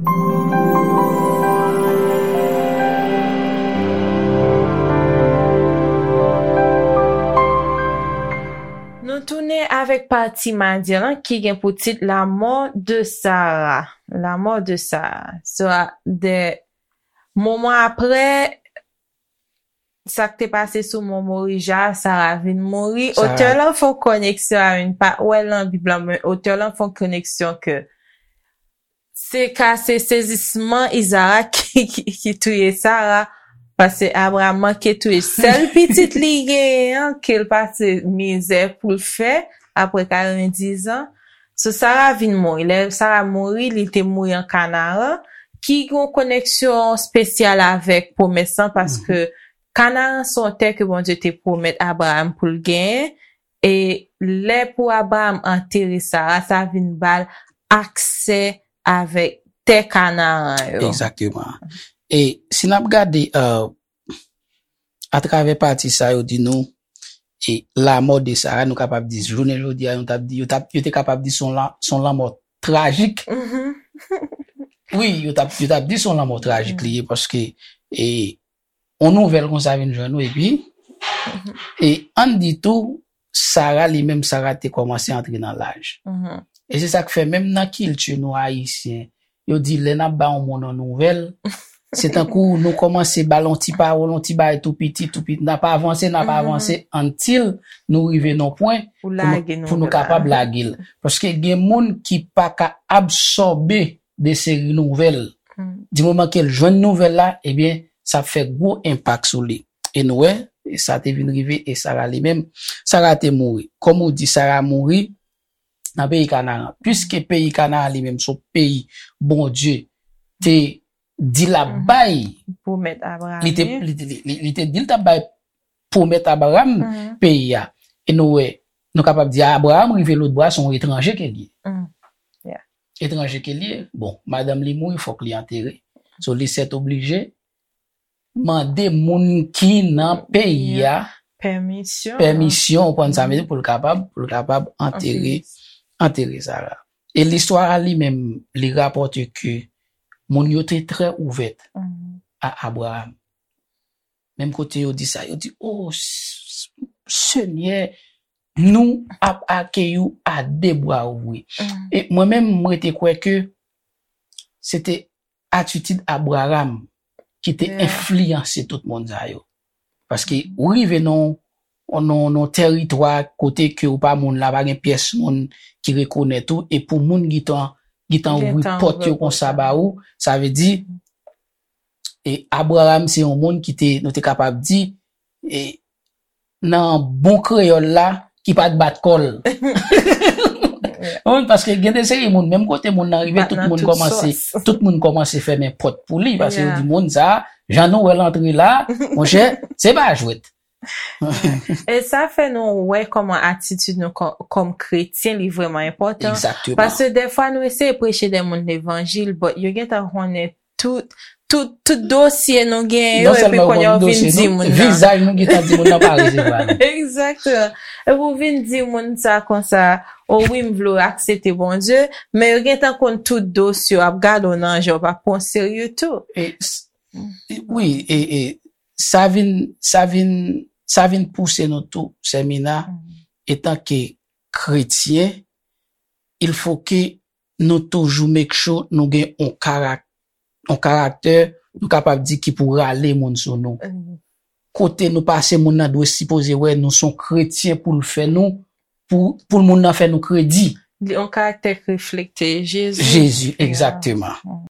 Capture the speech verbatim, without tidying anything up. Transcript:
Nou tounen avèk pati madi lan ki gen pou tit La mort de Sarah. La mort de Sarah. So, a, de moman apre, sa k te pase sou Mòn Morija, Sara vin mouri. Otè lan fè yon koneksyon a, m pa wè l nan Bib lan, men otè lan fè yon koneksyon ke se ka se sezisman Izarak ki, ki, ki touye Sara, paske Abraram manke touye sèl pitit li genyen an, ke l pase mizè pou l fè, apre karanndiz an. So, Sara vin mouri. Lè Sara mouri, li te mouri an Kanaran, ki gen yon koneksyon espesyal avèk pwomès lan, paske Kanaran se yon tè ke Bondye te pwomèt Abraram pou l genyen, e lè pou Abraram antere Sara, sa vin ba l aksè avèk tè Kanaran yo. Egzakteman. E si n ap gade, euh, atravè pati sa yo di nou, e la mort de Sarah, nou kapab di, jounen jodi a, yo t ap di, yo t ap, yo te kapab di se yon la, se yon lanmò trajik. Wi, yo t ap, yo t ap di se yon lanmò trajik li ye, paske, e, yon nouvèl konsa vin jwenn ou, epi, e, ann di tou, Sara, li menm, Sara te kòmanse antre nan laj. E se sa k fè, menm nan kilti nou, Ayisyen, yo di, lè n ap ba yon moun yon nouvèl, se tankou nou kòmanse ba l yon ti pawòl, yon ti bagay tou piti, tou piti. N ap avanse, n ap avanse, until nou rive nan pwen pou nou, pou nou kapab lage l. Paske gen moun ki pa ka absòbe de seri nouvèl. Di moman ke l jwenn nouvèl la, ebyen, sa ap fè gwo enpak sou li. E nou wè, e sa te vin rive, e Sara li menm, Sara te mouri. Kòm ou di, Sara mouri nan peyi Kanaran. Piske peyi Kanaran li menm, se yon peyi Bondye te di l ap bay, li te, li, li, li, li te di l t ap bay pwomèt Abraram peyi a. E nou wè, nou kapab di Abraram rive lòtbò a, se yon etranje ke li ye. Etranje ke li ye. Bon, madanm li mouri, fòk li antere. So, li sètoblije mande moun ki nan peyi a pèmisyon, ou konprann sa m vle di, pou l kapab, pou l kapab antere, antere Sara. E listwa a li menm, li rapòte ke moun yo te trè ouvè a Abraram. Menm kote yo di sa, yo di, "O, s-, s-, Senyè, nou ap akeyi w a de bra ouvri." E mwen menm, mwen te kwè ke se te atitid Abraram ki te enfliyanse tout moun sa yo. Paske ou rive nan, nan, nan teritwa kote ke ou pa moun la, pa gen pyès moun ki rekonèt ou, e pou moun gentan, gentan ouvri pòt yo konsa ba ou, sa vle di, e Abraram se yon moun ki te, nou te kapab di, e nan bon kreyòl la, ki pa t bat kò l. Ou konprann? Paske gen de seri moun, menm kote moun nan rive, tout moun kòmanse, tout moun kòmanse fèmen pòt pou li, paske yo di moun sa, jan nou wè l antre la, monchè, se pa jwèt. E sa fè nou wè kòman atitid nou kò-, kòm kretyen, li vrèman enpòtan. Paske dèfwa nou eseye preche de moun levanjil, but yo gentan konnen tout, tout, tout dosye nou genyen yo, epi kounye a w vin di moun nan. Vizaj nou gentan di moun nan pa resevwa nou. Egzakteman. Epi w vin di moun sa konsa, "O wi, m vle w aksepte Bondye," men yo gentan konn tout dosye w, ap gade w nan je w, pa pran w serye tou. E, s-, e, wi, e, e, sa vin, sa vin, sa vin pouse nou tou, Sè Mina, etanke kretyen, il faut que nou toujou make sure nou gen yon karak-, yon karaktè, nou kapab di ki pou rale moun sou nou. Kote nou pase, moun nan dwe sipoze wè nou se yon kretyen pou l fè nou, pou, pou moun nan fè nou kredi. Li yon karaktè k reflekte Jezi. Jezi, egzakteman.